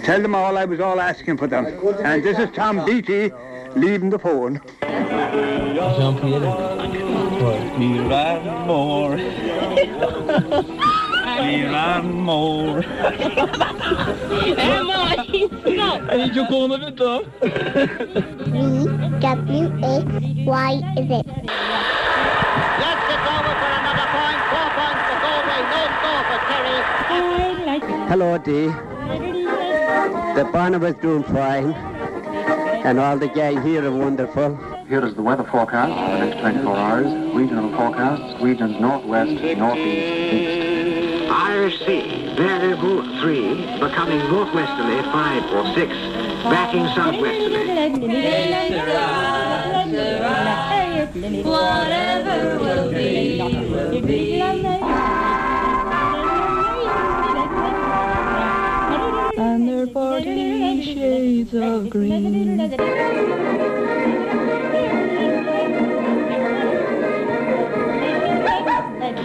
Tell them all I was all asking for them. And this is Tom Beatty leaving the phone. Ní raibh mór. Ní raibh mór. V W X Y Z. Yes, it's over for another point. 4 points for Galway, no score for Kerry. Hello Dee. The Barnabas doing fine and all the gang here are wonderful. Here is the weather forecast for the next 24 hours. Regional forecasts, regions northwest, northeast, east. Irish Sea, variable 3, becoming northwesterly 5 or 6, backing southwesterly. Whatever will be, will be. And their parting shades of green.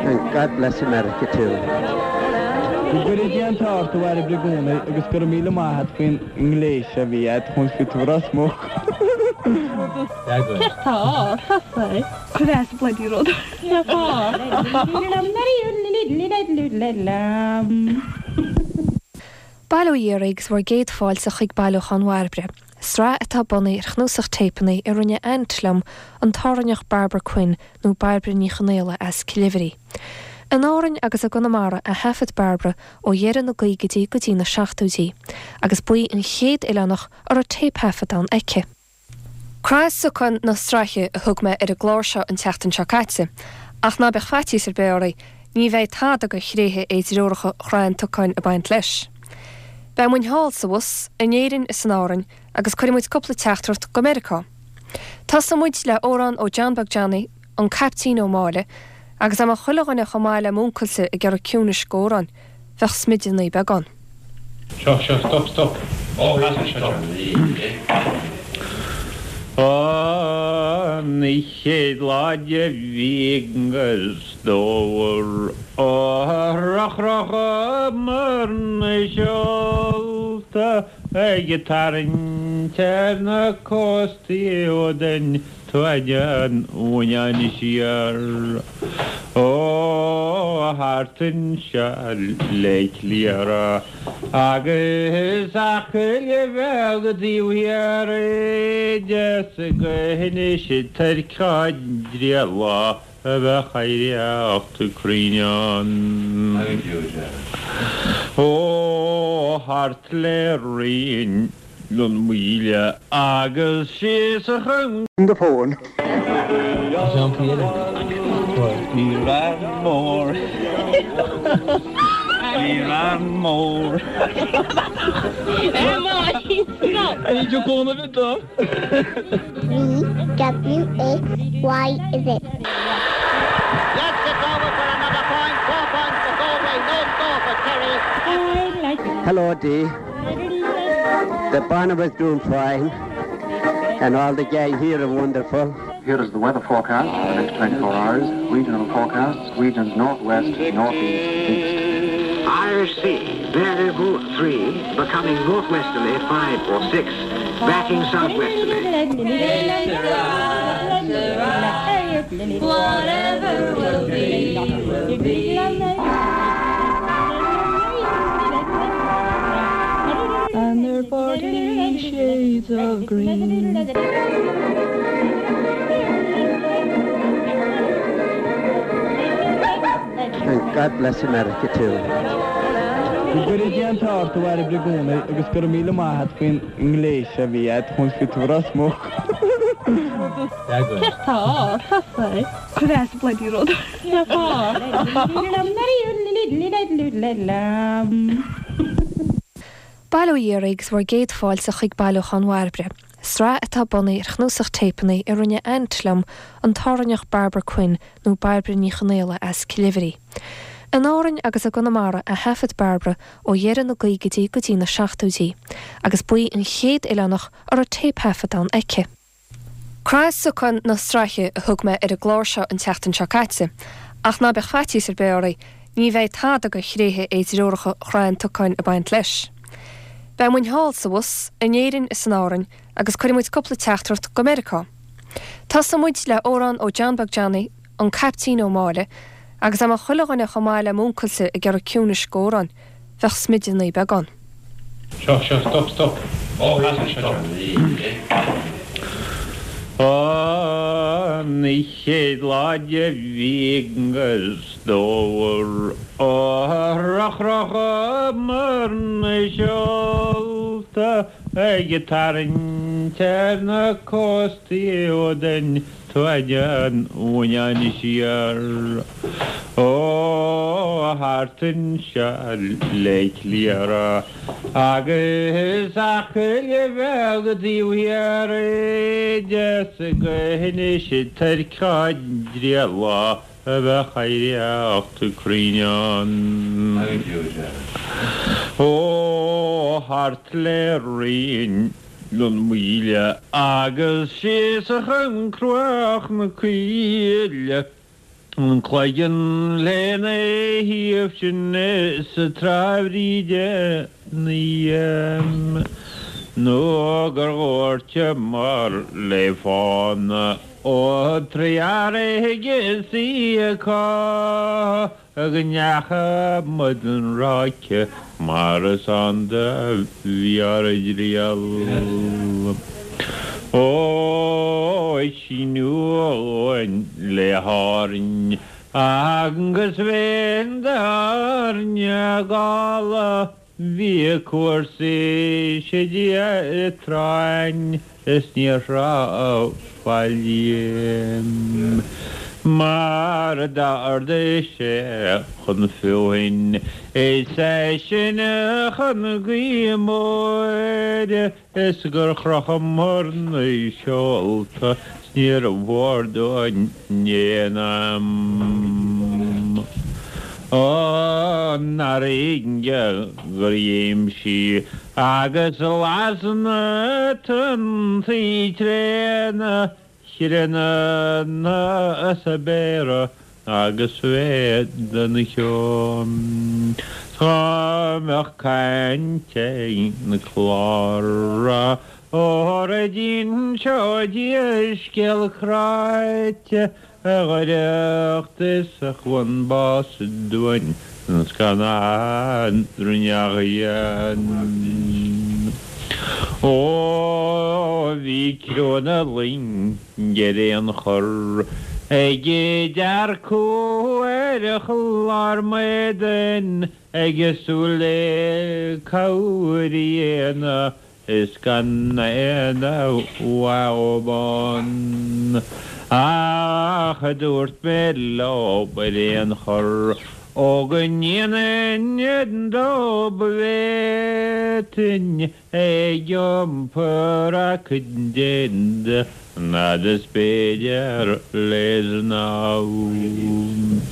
And God bless America too. Go gcuire Dia an t-ádh ort a Bhairbre i gcónaí agus go raibh míle maith a't faoin ngléas a bhí a't chun fit Ros Muc. Céard tá ort? Cuir as bloody rud. Bail ó Dhia oraibh agus bhur gcéad fáilte chuig Bailiúchán Bhairbre, sraith atá bunaithe ar chnuasach téipeanna a rinne aint liom, an tÁrainneach Barbara Quinn nó Bairbre Ní Chonaola as Cill Oibhrí. In Árainn agus i gConamara a thaifead Barbara ó dheireadh na gcaogaidí go dtí na seachtóidí, agus ba í an chéad oileánach a raibh téipthaifeadán aici. Craith Socáin na Sraithe a thug mé ar an gclár seo an tseachtain seo caite, ach ná beadh faitíos ar bith oraibh, ní bheidh tada de thréithe éidreoracha Shraith an tSocáin ag baint leis. Beidh muinn thall sa bhus, in Éirinn is in Árainn, agus cuirfidh muid cúpla teachtaireacht go Meiriceá. Tosóidh muid le amhrán ó John Beag Johnny, An Caiptín Ó Máille, agus dá mbeadh chuile dhuine chomh maith le m'uncailse ag iarraidh ciúnais d'amhráin, bheadh smideadh ní beag ann. Seo, seo, stop, stop. Ó, stop. An chéad lá de mhí an Fhómhair Chrochamar na seolta ag tarraingt ar na cóstaí ó den Tuaid an Bhuinneáin siar ó thart anseo le Cliara agus Acaill Bheag taobh thiar de 's go hInis Toirc á dtrialladh a bheadh oidhreacht cruinn ann. Ó thart le Rinn. An Mhaoile agus síos chun. the phone. Ní raibh mór. Ní raibh mór. V W X Y Z. Yes, it's over for another point. 4 points for Galway, no score for Kerry. Hello Dee. The Barnabas doing fine and all the gang here are wonderful. Here is the weather forecast for the next 24 hours. Regional forecasts, regions northwest, northeast, east. Irish Sea, variable 3, becoming northwesterly 5 or 6, backing southwesterly. Whatever will be, will be. And their parting shades of green. And God bless America too. Go gcuire Dia an t-ádh ort a Bhairbre i gcónaí agus go raibh míle maith a't faoin ngléas a bhí a't chun fit Ros Muc. Céard tá ort? Cuir as bloody rud. Bail ó Dhia oraibh agus bhur gcéad fáilte chuig Bailiúchán Bhairbre, sraith atá bunaithe ar chnuasach téipeanna a rinne aint liom, an tÁrainneach Barbara Quinn nó Bairbre Ní Chonaola as Cill Oibhrí. In Árainn agus i gConamara a thaifead Barbara ó dheireadh na gcaogaidí go dtí na seachtóidí, agus ba í an chéad oileánach a raibh téipthaifeadán aici. Craith Socáin na Sraithe a thug mé ar an gclár seo an tseachtain seo caite, Ach ná beadh faitíos ar bith oraibh, ní bheidh tada de thréithe éidreoracha Chrann Tocáin ag baint leis. Beidh muinn thall is abhus, in Éirinn is in Árainn, agus cuirfidh muid cúpla teachtaireacht go Meiriceá. Tosóidh muid le amhrán ó John Beag Johnny, an Caiptín Ó Máille, agus dá mbeadh chuile dhuine chomh maith le m'uncailse ag iarraidh ciúnais d'amhráin, bheadh smideadh naomh beagán. Seo, seo, stop, stop. Stop. An chéad lá de mhí an fhómhair a chrochamar na seolta ag tarraingt ar na cóstaí ó den Tóin an Bhuinneáin siar ó thart anseo le Cliara agus Acaill Bheag taobh thiar de is go hInis Toirc á dtriall a bheadh oidhreacht cruinn ann. Ó thart le Rinn an Mhaoile agus síos chun Cruach na Coille, an Cloigeann lena thaobh sin is Trá Bhríde 9M nó gur dhúirteamar le fána ó Trearaigh is í acu. Go ndeacha muid an ráice mar is ann do bhí ár dtriall. Ó, síniú uainn le hÁrainn agus bheinn d'Árainn gála. Bhí cúrsaí séidte tráinn is níor thráth faillí mar d'ardaigh sé chun feothain is eisean chun gaoithe móire is gur chrochamar na seolta 's níor mhór dúinn aon am an fharraige gur léim sí agus las na tonntaí tréana chríonna sa bpéire agus mhéad an cheo. Dá mbeadh caint ag na clára óra d'inseoidís scéal cráite a dh'oidhreacht is a chlann bás dúinn an scannán rinneadh dhéan. Ó bhí criú na loinge ar aon chor ag dearcadh ar chlár m'éadain ag súil le cabhair a dhéanamh is gan aon mhaith ann. Ach dúirt mé leo ar aon chor ó go ndéanfainn dóibh bhféadfainn ag iompar a cuid d'éadaí an fhad is b'fhéidir le snámh.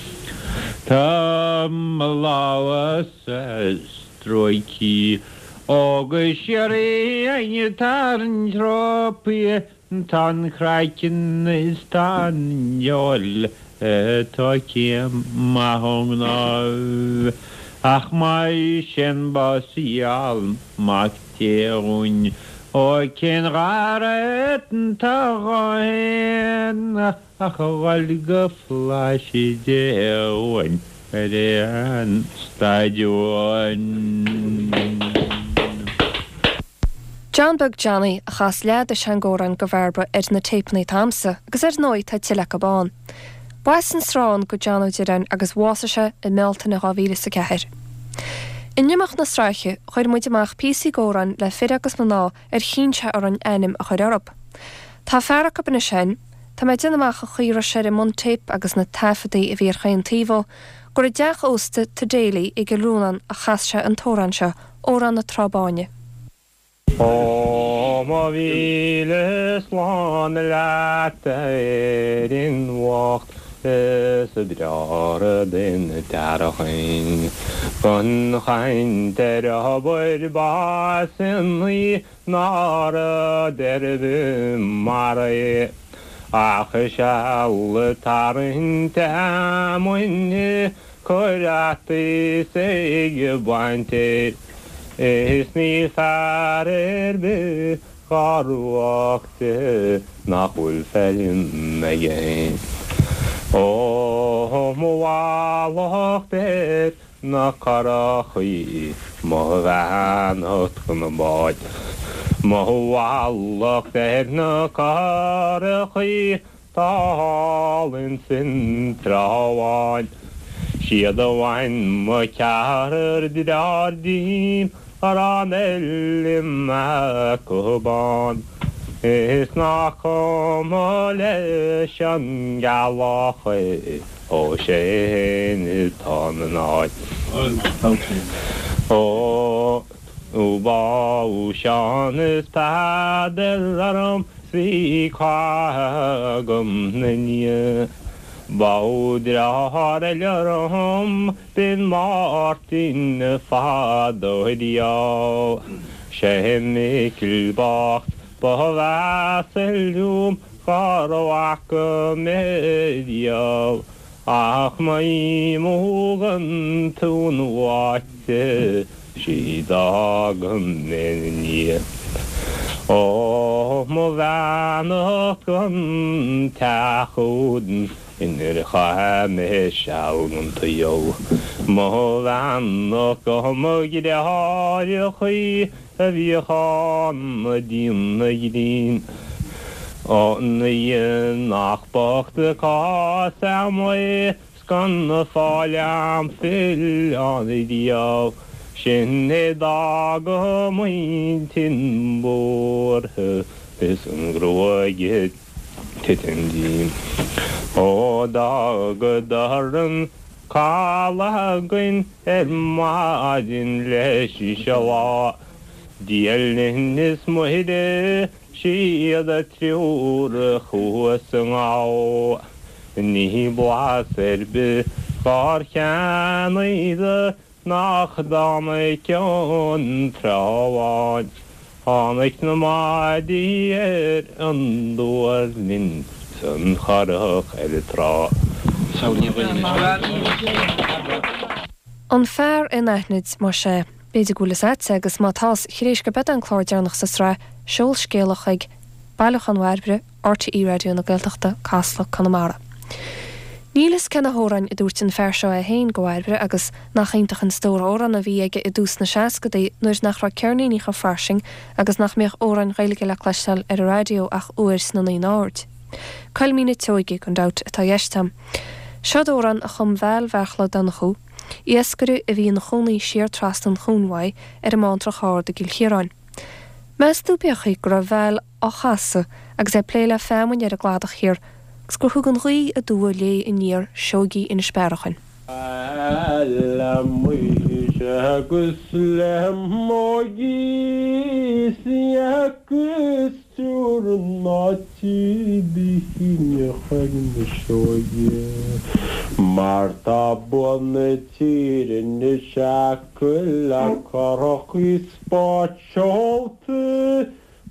Tá mo lámha-sa stróicthe ó go síoraí ag tarraingt rópaí Tá an craiceann is tá an fheoil tógtha maith ón gcnámh, ach más é bás a gheall Mac Dé dhúinn, ó cén ghar atá dhó fhéin ach a dhul go Flaithis Dé dhúinn ar aon staid uainn. John Beag Johnny a chas leath de seanamhráin do Bhairbre ar na téipeanna atá a'msa agus ar ndóigh tá tuilleadh acu ann. B'as an Srón do John Ó Direáin agus bhásaigh sé i mBealtaine 2004. In imeacht na sraithe chuir muid amach píosaí d'amhráin le fir agus mná ar chinn sé orainn ainm a chur orthu. Tá fear acu anois féin, tá mé ag déanamh amach an chaoi a raibh sé ar an mbuntéip agus na taifeadaí a bhí ar chaon taobh dhó, gur i dteach ósta To Daly i gCill Rónáin a chas sé an t-amhrán seo, Amhrán na Trá Báine. Ó mo mhíle slán leat a Éirinn bhocht is breá den tearchain Gan chaint ar obair b'ansa í ná rud ar bith mar é. Ach seal ag tarraingt fheamainne, cur fhataí 's ag baint fhéir, is níl fear ar bith dhá ruadh de nach bhfuil feirm aige fhéin. Ó mo mhallacht ar na curachaí, mo bheannacht go na báid. Mo mhallacht ar na curachaí tá thall ins an Trá Bháin. Siad a bhain mo cheathrar dearthár díom a raibh an fheilm acu bán. Is nach cuma leis an gceallach é. Ó sé fhéin atá ina áit. Ó bádh Seán is Peadar orm 's bhí cath agam 'na ndiaidh. Bádh deartháir eile orm b'in Máirtín fadó riamh. Sé Micil bocht ba mheasa liom Dhá bhfaca mé riamh ach má thógann tú an bháite sí d'fhága mé 'na ndiaidh. Ó mo bheannacht gon teach úd inar chaith mé seal gon tsaol. Mo bheannacht go mo dheartháireachaí a bhíodh ana-dhian grinn. Ó ní nach bocht an cás a'm é 's gan fáil a'm filleán riamh, sin é d'fhág m'intinn buartha is an ghruaig ag titim díom. Ó d'fhágadar an caladh againn ar maidin leis an lá. Dia linn is Muire, siad an triúr thuas i ngabha. Ní blas ar bith dhár cheannaíodar nach dtáinig ón Trá Bháin. Tháinig na maidí ar an duirlinn 's an churach ar an trá. An Fear Anaithnid, más ea. B'fhéidir go bhfuil fhios a'dsa agus má tá's, tar éis gurb é an clár deireanach sa sraith, seol scéala chuig Bailiúchán Bhairbre, RTÉ Raidió na Gaeltachta, Casla, Conamara. Níl fhios cé na hamhráin a dúirt an fear seo é féin go Bhairbre agus nach iontach an stór amhrán a bhí aige i dtús na seascadaí nuair nach raibh ceirníní chomh fairsing agus nach mbíodh amhráin Ghaeilge le cloisteáil ar an raidió ach uair sna naoi n-aird. Coilmín na Tseoige, gan dabht, atá i gceist a'm. Seod amhrán a chum Val Bheartla Donnchú, iascaire a bhí ina chónaí siar trasna an chuain uaidh ar an mBántrach Ard i gCill Chiaráin. Meas tú pé chaoi go raibh Val á chasadh agus é ag plé le feamainn ar an gcladach thiar agus gur thug an ghaoth aduaidh léi aniar sióigí Inis Bearachain. Le Muire agus le Muiris agus triúr ná bíonn chuig na sióige mar tá bua na tíre anois acu le curachaí 's báid seolta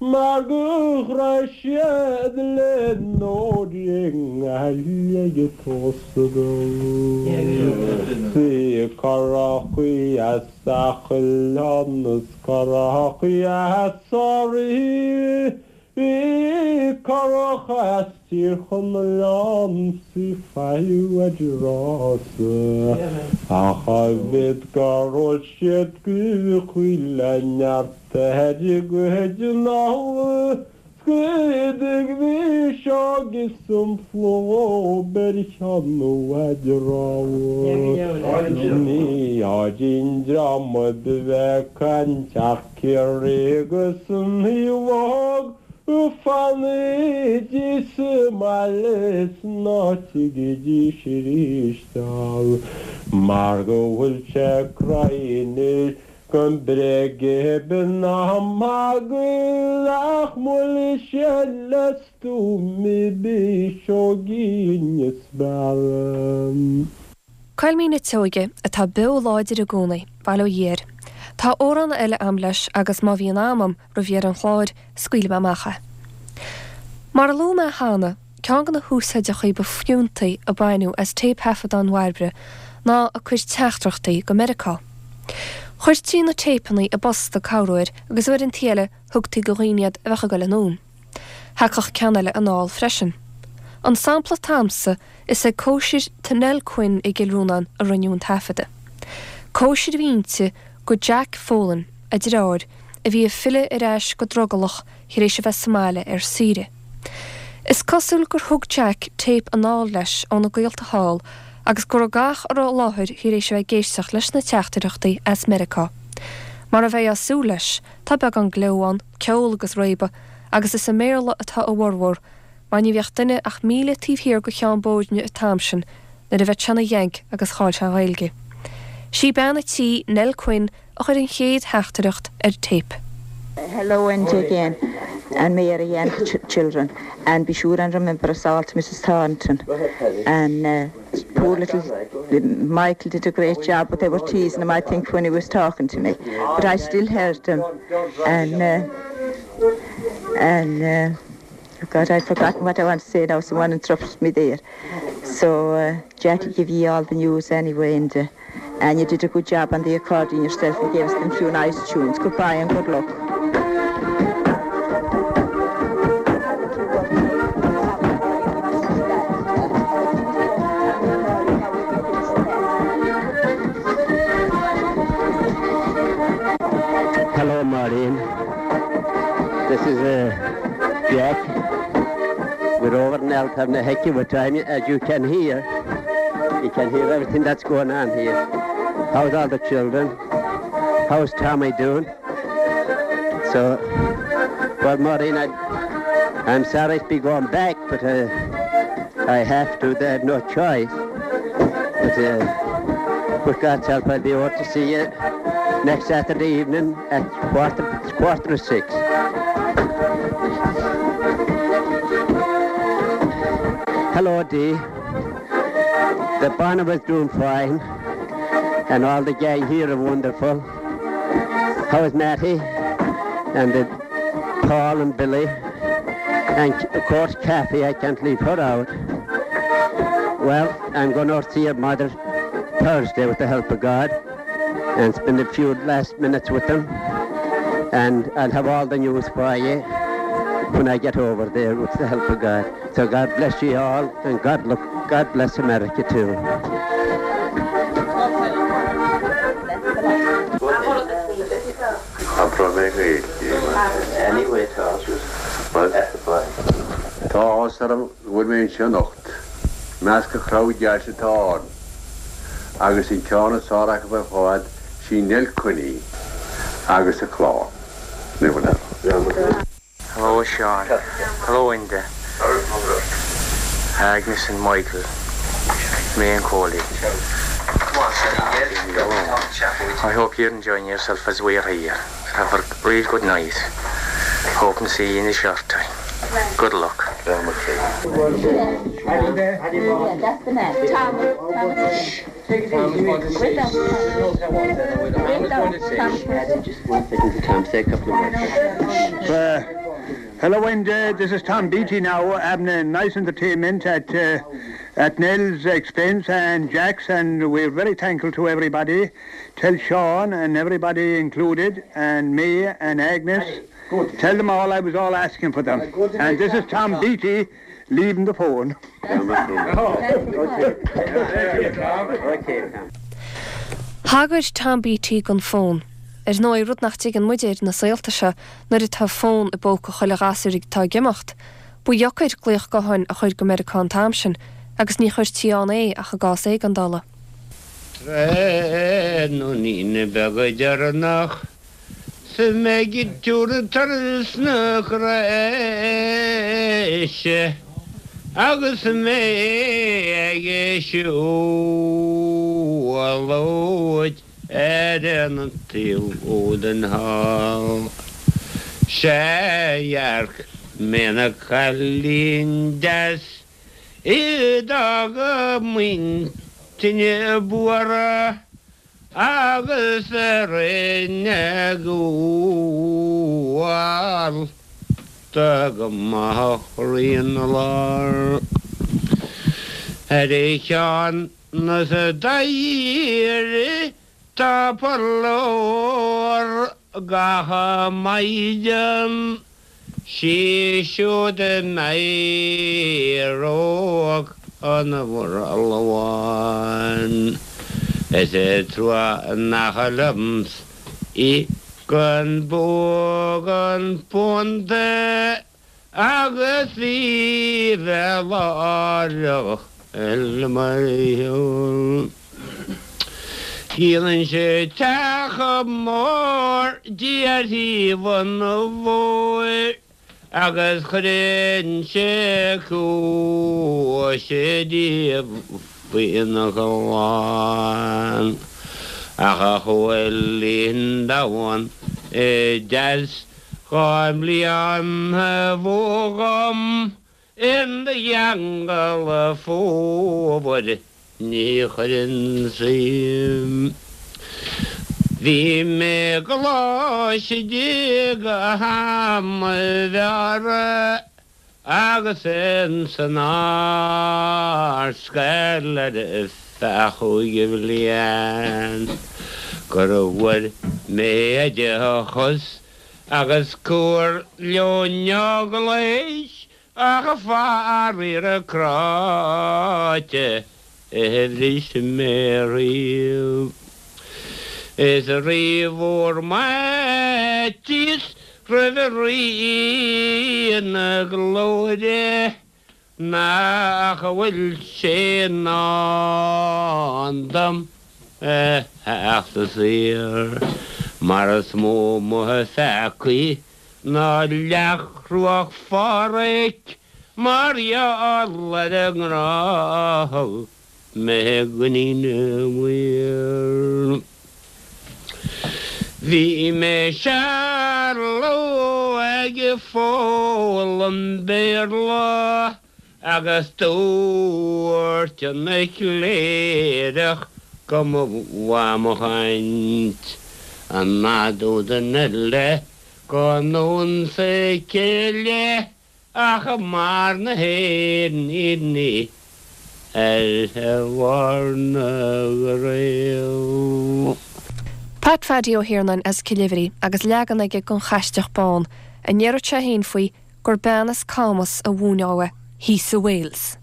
Mar go raibh siad le n-óir i nGaillimh ag tosú Sí curachaí as Oileán is curachaí as Thoraí Bhí curach as Tír Chonaill ann 's í faigheadh ar rása Ach a mhéad gur ól siad go chuile neart Ar a gcuid analla scríodaigh bhí seo is an phlób ar cheann an rabhadh. Ní áirím dream a bheith ag caint ach Ciarraí agus an Uíbh Fanaidís sa mbaile is ná tigeidís arís dall mar go bhfuil sé cruinn Gan bréag b'in an magadh ach mhoilligh sé le stuaim b'í Inis Bearra. Coilmín na Tseoige, atá beo láidir i gcónaí, bail ó Dhia air. Tá amhrán eile a'm leis agus má bhíonn am a'm roimh dheireadh an chláir, scaoilfidh mé amach é. Mar a luaigh mé cheana, ceann de na húsáideachaí ba fiúntaí a baineadh as téipthaifeadáin Bhairbre ná a cuid teachtaireachtaí go Meiriceá. Chuirtí na téipeanna i bposta corruair agus uaireanta eile thugtaí go dhaoine iad a bheadh ag dul anonn. Thagadh ceann eile anall freisin. An sampla atá a'msa, is ag cóisir tí Nell Quinn i gCill Rónáin a rinneadh an taifeadadh. Cóisir a bhí inti go Jack Folan, a deartháir, a bhí ag filleadh ar ais go drogallach thar éis a bheith sa mbaile ar saoire. Is cosúil gur thug Jack téip anall leis óna gaolta thall agus go raibh gach a raibh i láthair thar éis a bheith ag éisteacht leis na teachtaireachtaí as Meiriceá. Mar a bheifeá ag súil leis, tá beagán gleo ann, ceol agus réabadh, agus is i mBéarla atá a bhformhór, mar ní bheadh duine ach míle taobh thiar go Cheann Bóirne an t-am sin nuair a bheadh sé ina Yank agus chaill sé an Ghaeilge. Sí bean a' tí, Nell Quinn, a chuir an chéad theachtaireacht ar téip. Hello Enda again and Mary and the children and be sure and remember us all to Mrs Thornton and uh, poor little Michael did a great job but they were teasing him I think when he was talking to me but I still heard him and uh, and uh, oh God I've forgotten what I want to say now someone interrupted me there so uh, Jackie give you all the news anyway and uh, and you did a good job on the accordion yourself and gave us them few nice tunes goodbye and good luck. Hello Maureen. This is uh, Jack. We're over in Elton a heck of a time as you can hear. You can hear everything that's going on here. How's all the children? How's Tommy doing? So, well, Maureen, I, I'm sorry to be going back, but uh, I have to. They have no choice. But uh, with God's help, I'll be able to see you next Saturday evening at quarter, quarter to six. Hello, Dee. The banner was doing fine, and all the gang here are wonderful. How is Matty and the Paul and Billy and of course Kathy, I can't leave her out. Well, I'm going to see her mother Thursday with the help of God and spend a few last minutes with them and I'll have all the news for you when I get over there with the help of God. So God bless you all and God look God bless America too. Tá áthas orm go bhfuil mé anseo anocht. Measc an chrowd deas atá ann. Agus an ceann is fearr acu ar fad, sí Nell Quinn í agus a clann. Hello Sean. Hello Enda. Agnes and Michael. Me and Coley. I hope you're enjoying yourself as we are here. Have a real good night. Hope and see you in a short time. Good luck. Uh, hello Enda, this is Tom Beatty now having a nice entertainment at uh, at Nell's expense and Jack's and we're very thankful to everybody. Tell Sean and everybody included and me and Agnes. Tell them all I was all asking for them. And this is Tom Beatty leaving the phone. Thagair Tom Beatty don fón. Ar ndóigh, rud nach dtuigeann muid air na saolta seo nuair atá fón i bpóca chuile ghasúir atá ag imeacht. Ba dheocair glaoch gutháin a chur go Meiriceá an t-am sin agus ní chuirtí ann é ach i gcás éigeandála. Tráthnóinín beag deireanach 's mé ag tabhairt turas na Croise agus mé ag siúlóid ar an taobh údan thall. Sea dhearc mé na cailín deas I d'fhág a m'intinn buartha agus a rinne gabháil. Dá go mbeadh rian 'na lár ar a cheann is dá dh'iarraidh tá purlór gach maighdean sí siúd a n-éireodh an murlabhán. Is trua nach liomsa í gan buadh an punt agus í bheith láithreach le mo cheol. Dhíolann sé teach mór di ar thaobh an bhóthair agus cuireann sé cluais di faoina chlann. Ach a Chóilín domhan deas 2 mblian ba mhó dhom in do cheangal fómhair ní chuirfinn suim. Bhí mé i gcoláiste go ham bhearra agus ins an Ardscoil ar feadh chúig bhliain gur bhfuair mé oideachas agus cur leon eaglais ach faraor cráite a bhris mé riamh. Is rí-mhór m'fhaitíos roimh Rí na Glóire nach bhfuil sé i ndán dom a theacht saor mar is mó mo pheacaí ná leac chruach Pháraic mar gheall ar an ngrá a thug mé d'Iníon Mhaoir. Bhí mé seal ag foghlaim Béarla agus dúirt an cléireach go mba mhaith mo chaint an fhad údan eile go nDún Sicile ach mar na héiníní ar bharr na gcraobh. Pat Phaidí Ó hIarnáin as Cill Oibhrí agus leagan aige den Chaisteach Bán, a ndéarfadh sé féin faoi gur bean as Camas a mhúin dó é, thíos i Wales.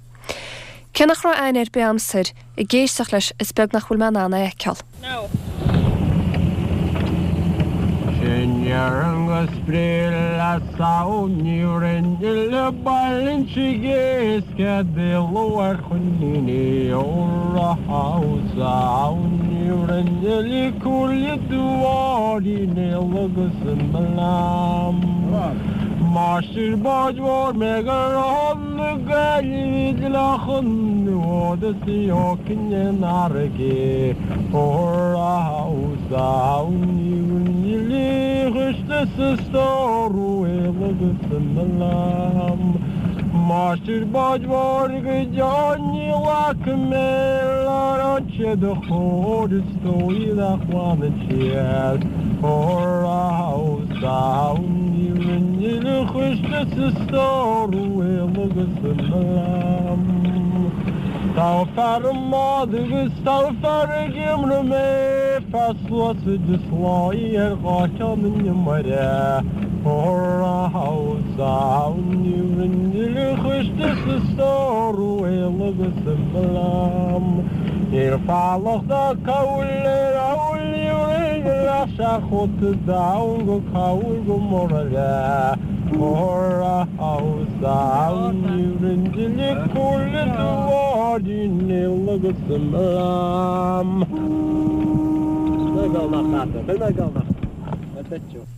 Cé nach raibh aithne ar bith a'msa air, ag éisteacht leis is beag nach bhfuil mé in ann é a fheiceáil. Sin deireann go spré le samhail ní rinne le bailinte éasca de luar choiníní óra samhail ní rinne le cúile duáirí néal agus i mBleam. Máistir báid mhóir mé go raibh na Gaillimhe dleachán nó de ócin in fharraige Máistir báid mhóir go deo ní bhfaca mé an sé do chóir is dóigh nach bhfanann siad Tá fear i mbád agus tá fear ag iomramh mé, fear sluasaid is láí ar dhá cheann an iomaire. Níl falach ná cabhail ar amhlaidh ach seachóta donn go cabhail go muraile.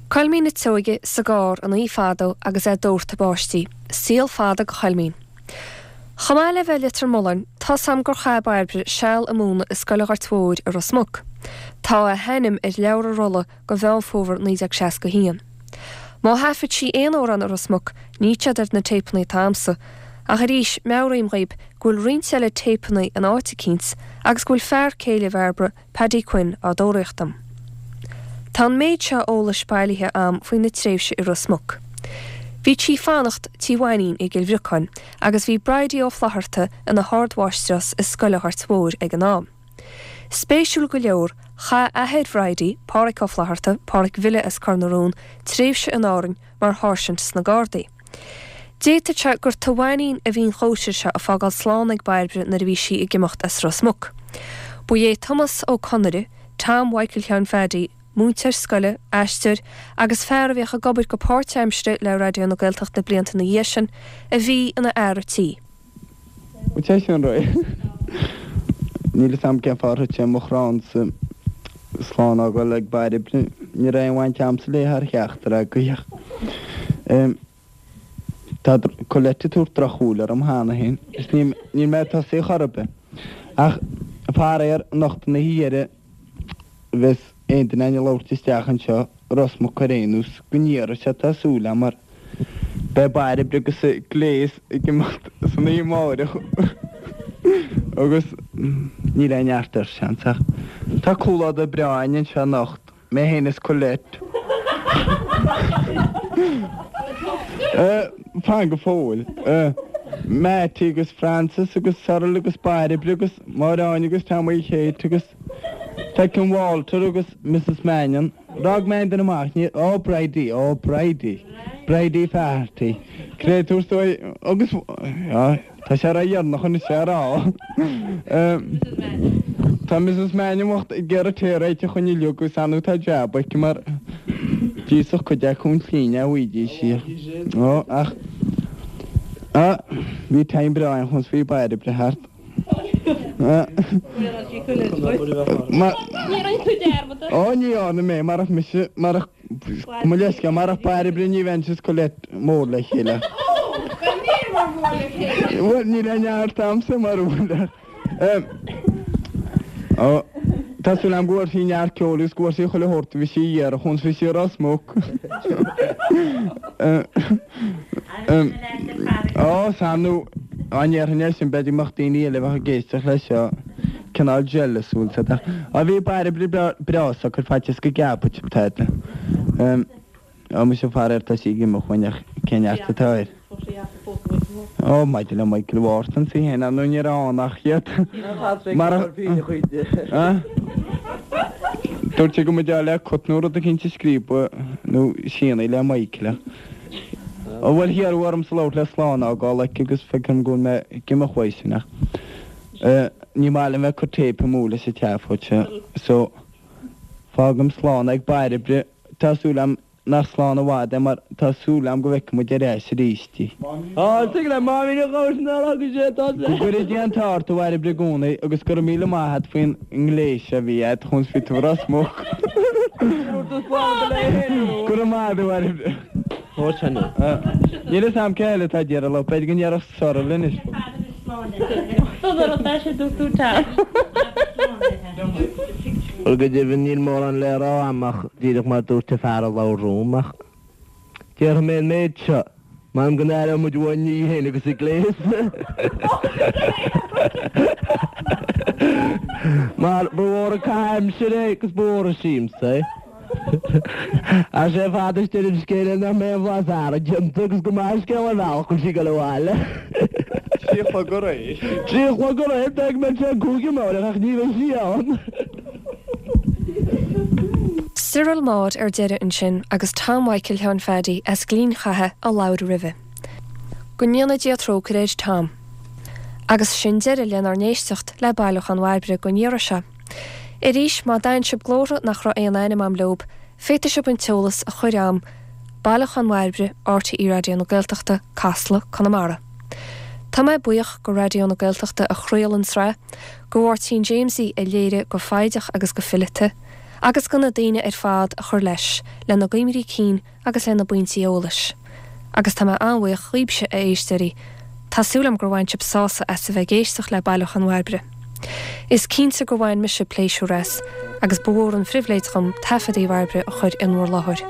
Coilmín an tSeoighe sa gcarr an oíche fadó agus é ag doirteadh báistí. Saol fada go Choilmín. Chomh maith le bheith i Leitir Mealláin, tá's a'm gur chaith Bairbre seal ag múineadh i Scoil an Ghoirt Mhóir i Ros Muc. Tá a hainm ar leabhar an rolla go Mheán Fómhair 1961. Má thaifead sí aon amhrán i Ros Muc, níl siad ar na téipeanna atá a'msa, ach arís, meabhraím dhaoib go bhfuil roinnt eile téipeanna in áit eicínt agus go bhfuil fear céile Bhairbre, Paddy Quinn, á dtóraíocht dom. Tá an méid seo eolais bailithe a'm faoina tréimhse i Ros Muc. Bhítí fanacht Tí Mhainín i gCill Bhriocáin agus bhí Bridie Ó Flatharta ina hardmháistreás i Scoil an Ghoirt Mhóir ag an am. Spéisiúil go leor, chaith athair Bhridie, Pádhraic Ó Flatharta, Pádhraic Bhille as Cor na Rón, tréimhse in Árainn mar sháirsint sna Gardaí. D'fhéadfadh sé gur Tigh Mhainín a bhí an chóisir seo ag fágáil slán ag Bairbre nuair a bhí sí ag imeacht as Ros Muc. Ba é Tomás Ó Conaire, Tom Mhichael Sheáin Phaddy, múinteoir scoile, aisteoir agus fear a bhíodh ag obair go páirtaimseartha le Raidió na Gaeltachta blianta ina dhiaidh sin, a bhí ina fhear a' tí. Bhuel, sé sin réidh. Níl fhios a'm cén fáth ar thit sé mo chránsa slán a fhágáil ag Bairbre. Ní raibh aon bhaint a'msa léi thar cheachtar agaibh ach tá Colette ag tabhairt drochshúil orm cheana féin is níl mé ag tosaí chor ar bith. Ach faraor, anocht an oíche dheiridh bheas aon duine againn ag labhairt isteach anseo i Ros Muc ar aon nós, go n-iarrfaidh sé tá súil a'm mar beidh Bairbre agus a gléas ag imeacht san oíche amáireach agus níl aon neart air seans ach tá comhluadar breá againn anseo anocht, mé féin is Colette. Fan go fóill. Mattie agus Francis agus Cyril agus Bairbre agus Máire Áine agus Tommy Kate agus Feicim Walter agus Mrs Mannion. D'fhág mé aon duine amach, ní, ó Bridie, ó Bridie, Bridie Faherty. Créatúr is dóigh, agus, á, tá sé ródheireanach anois é a rá. Tá Mrs Mannion bocht ag iarraidh tae a réiteach dhúinn uilig agus ar ndóigh tá jab aici mar d'íosfadh cuid acu an tslí ní bhfaighidís í. Ó, ach, á, bhí time breá ann chun bhí Bairbre thart. Ó, ní dhearna mé, marach mise, marach, mo leithscéal, marach Bairbre ní bheinnse is Colette mór le chéile. Bhuel, níl aon neart a'msa mar bhuel. Ó, tá súil a'm go bhfuair sí neart ceoil agus go bhfuair sí chuile shórt a bhí sí a iarraidh chun bhí sí i Ros Muc. Ó, sea, nó dá ndéarfainn é sin, b'fhéidir go mbeadh daoine eile a bheadh ag éisteacht leis seo cineál jealous, bhfuil 's a'd. Á, bhí Bairbre breá socair faitíos go gceapfadh sibh tada. Ó, muise faraor tá sí ag imeacht uainn ach cén neart atá air? Ó, maidir le Michael Wharton sí féin, ar ndóigh ní raibh ann ach iad. Mar a. Dúirt sé go mba deá le cut nó rud eicínt a scríobadh nó síneadh le Michael ach. Ó bhuel hiarradh ormsa labhairt le slán a fhágáil aici agus feicim go bhfuil mé ag imeacht uaidh sin ach ní maith liom bheith ag cur téip amú leis an tseafóid seo so fágaim slán ag Bairbre. Tá súil a'm nach slán i bhfad é mar tá súil a'm go bhfeicfidh muid ar ais arís í. Á, tig le Máimín a ghabhairt nár fhága sé tá Go gcuire Dia an t-ádh ort a Bhairbre i gcónaí agus go raibh míle maith a't faoin ngléas a bhí a't chun bhí tú Ros Muc. Go raibh maith a't a Bhairbre. Níl fhios a'm cé eile atá ag iarraidh labhairt, b'fhéidir go ndéarfadh Cyril anois. Bhuel, go deimhin, níl mórán le rá a'm ach díreach mar dúirt an fear a labhair romham, ach déarfaidh mé an méid seo, m'anam go n-aireoidh muid uainn í féin agus a gléas. Mar ba mhór an caitheamh aimsire é agus ba mhór an siamsa é. Ach sé fad is deireadh an scéil é nach mbeidh aon bhlas earraigh déanta agus go maith an scéal ar bhealach go bhfuil sí ag dul abhaile. 3 a chlog aréir. 3 a chlog aréir, b'fhéidir go mbeidh sé an 5 amárach ach ní bheidh sí ann. Cyril Maude ar deireadh ansin agus Tom Mhichael Sheáin Phaddy as Gleann Chatha a labhair roimhe. Go ndéana Dia trócaire ar Tom. Agus sin deireadh lenár n-éisteacht le Bailiúchán Bhairbre don iarraidh seo. Arís, má d'aithin sibh glórtha nach raibh aon ainm a'm leob, féadfaidh sibh an t-eolas a chur a'm, Bailiúchán Bhairbre, RTÉ Raidió na Gaeltachta, Casla, Conamara. Tá mé buíoch go Raidió na Gaeltachta a chraol an tsraith, go Mháirtín Jamesie a léirigh go foighdeach agus go fileata, agus go na daoine ar fad a chuir leis, lena gcuimhní cinn agus lena bpointí eolais. Agus tá mé an-bhuíoch dhaoibhse, a éisteoirí. Tá súil agam gur bhain sibh sásamh as a bheith ag éisteacht le Bailiúchán Bhairbre. Is cinnte gur bhain mise pléisiúr as, agus ba mhór an phribhléid dhom taifeadaí Bhairbre a chur in bhur láthair.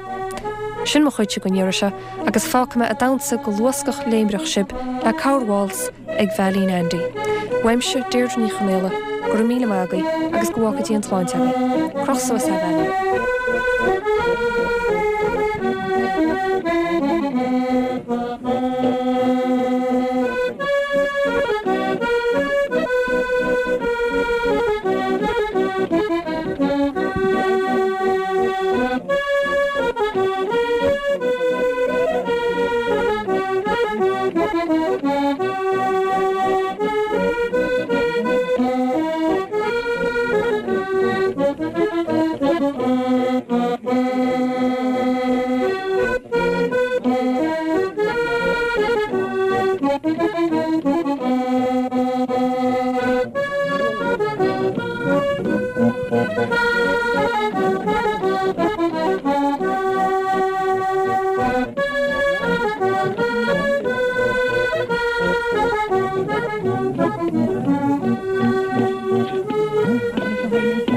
Sin mo chuidse don iarraidh seo, agus fágfaidh mé ag damhsa go luascach léimreach sibh le Corr Waltz ag Veailín Andy. Uaimse, Deirdre Ní Chonaola. Go raibh míle maith agaibh agus go bhfága Dia an tsláinte agaibh. Croch suas é, a Bheairtle.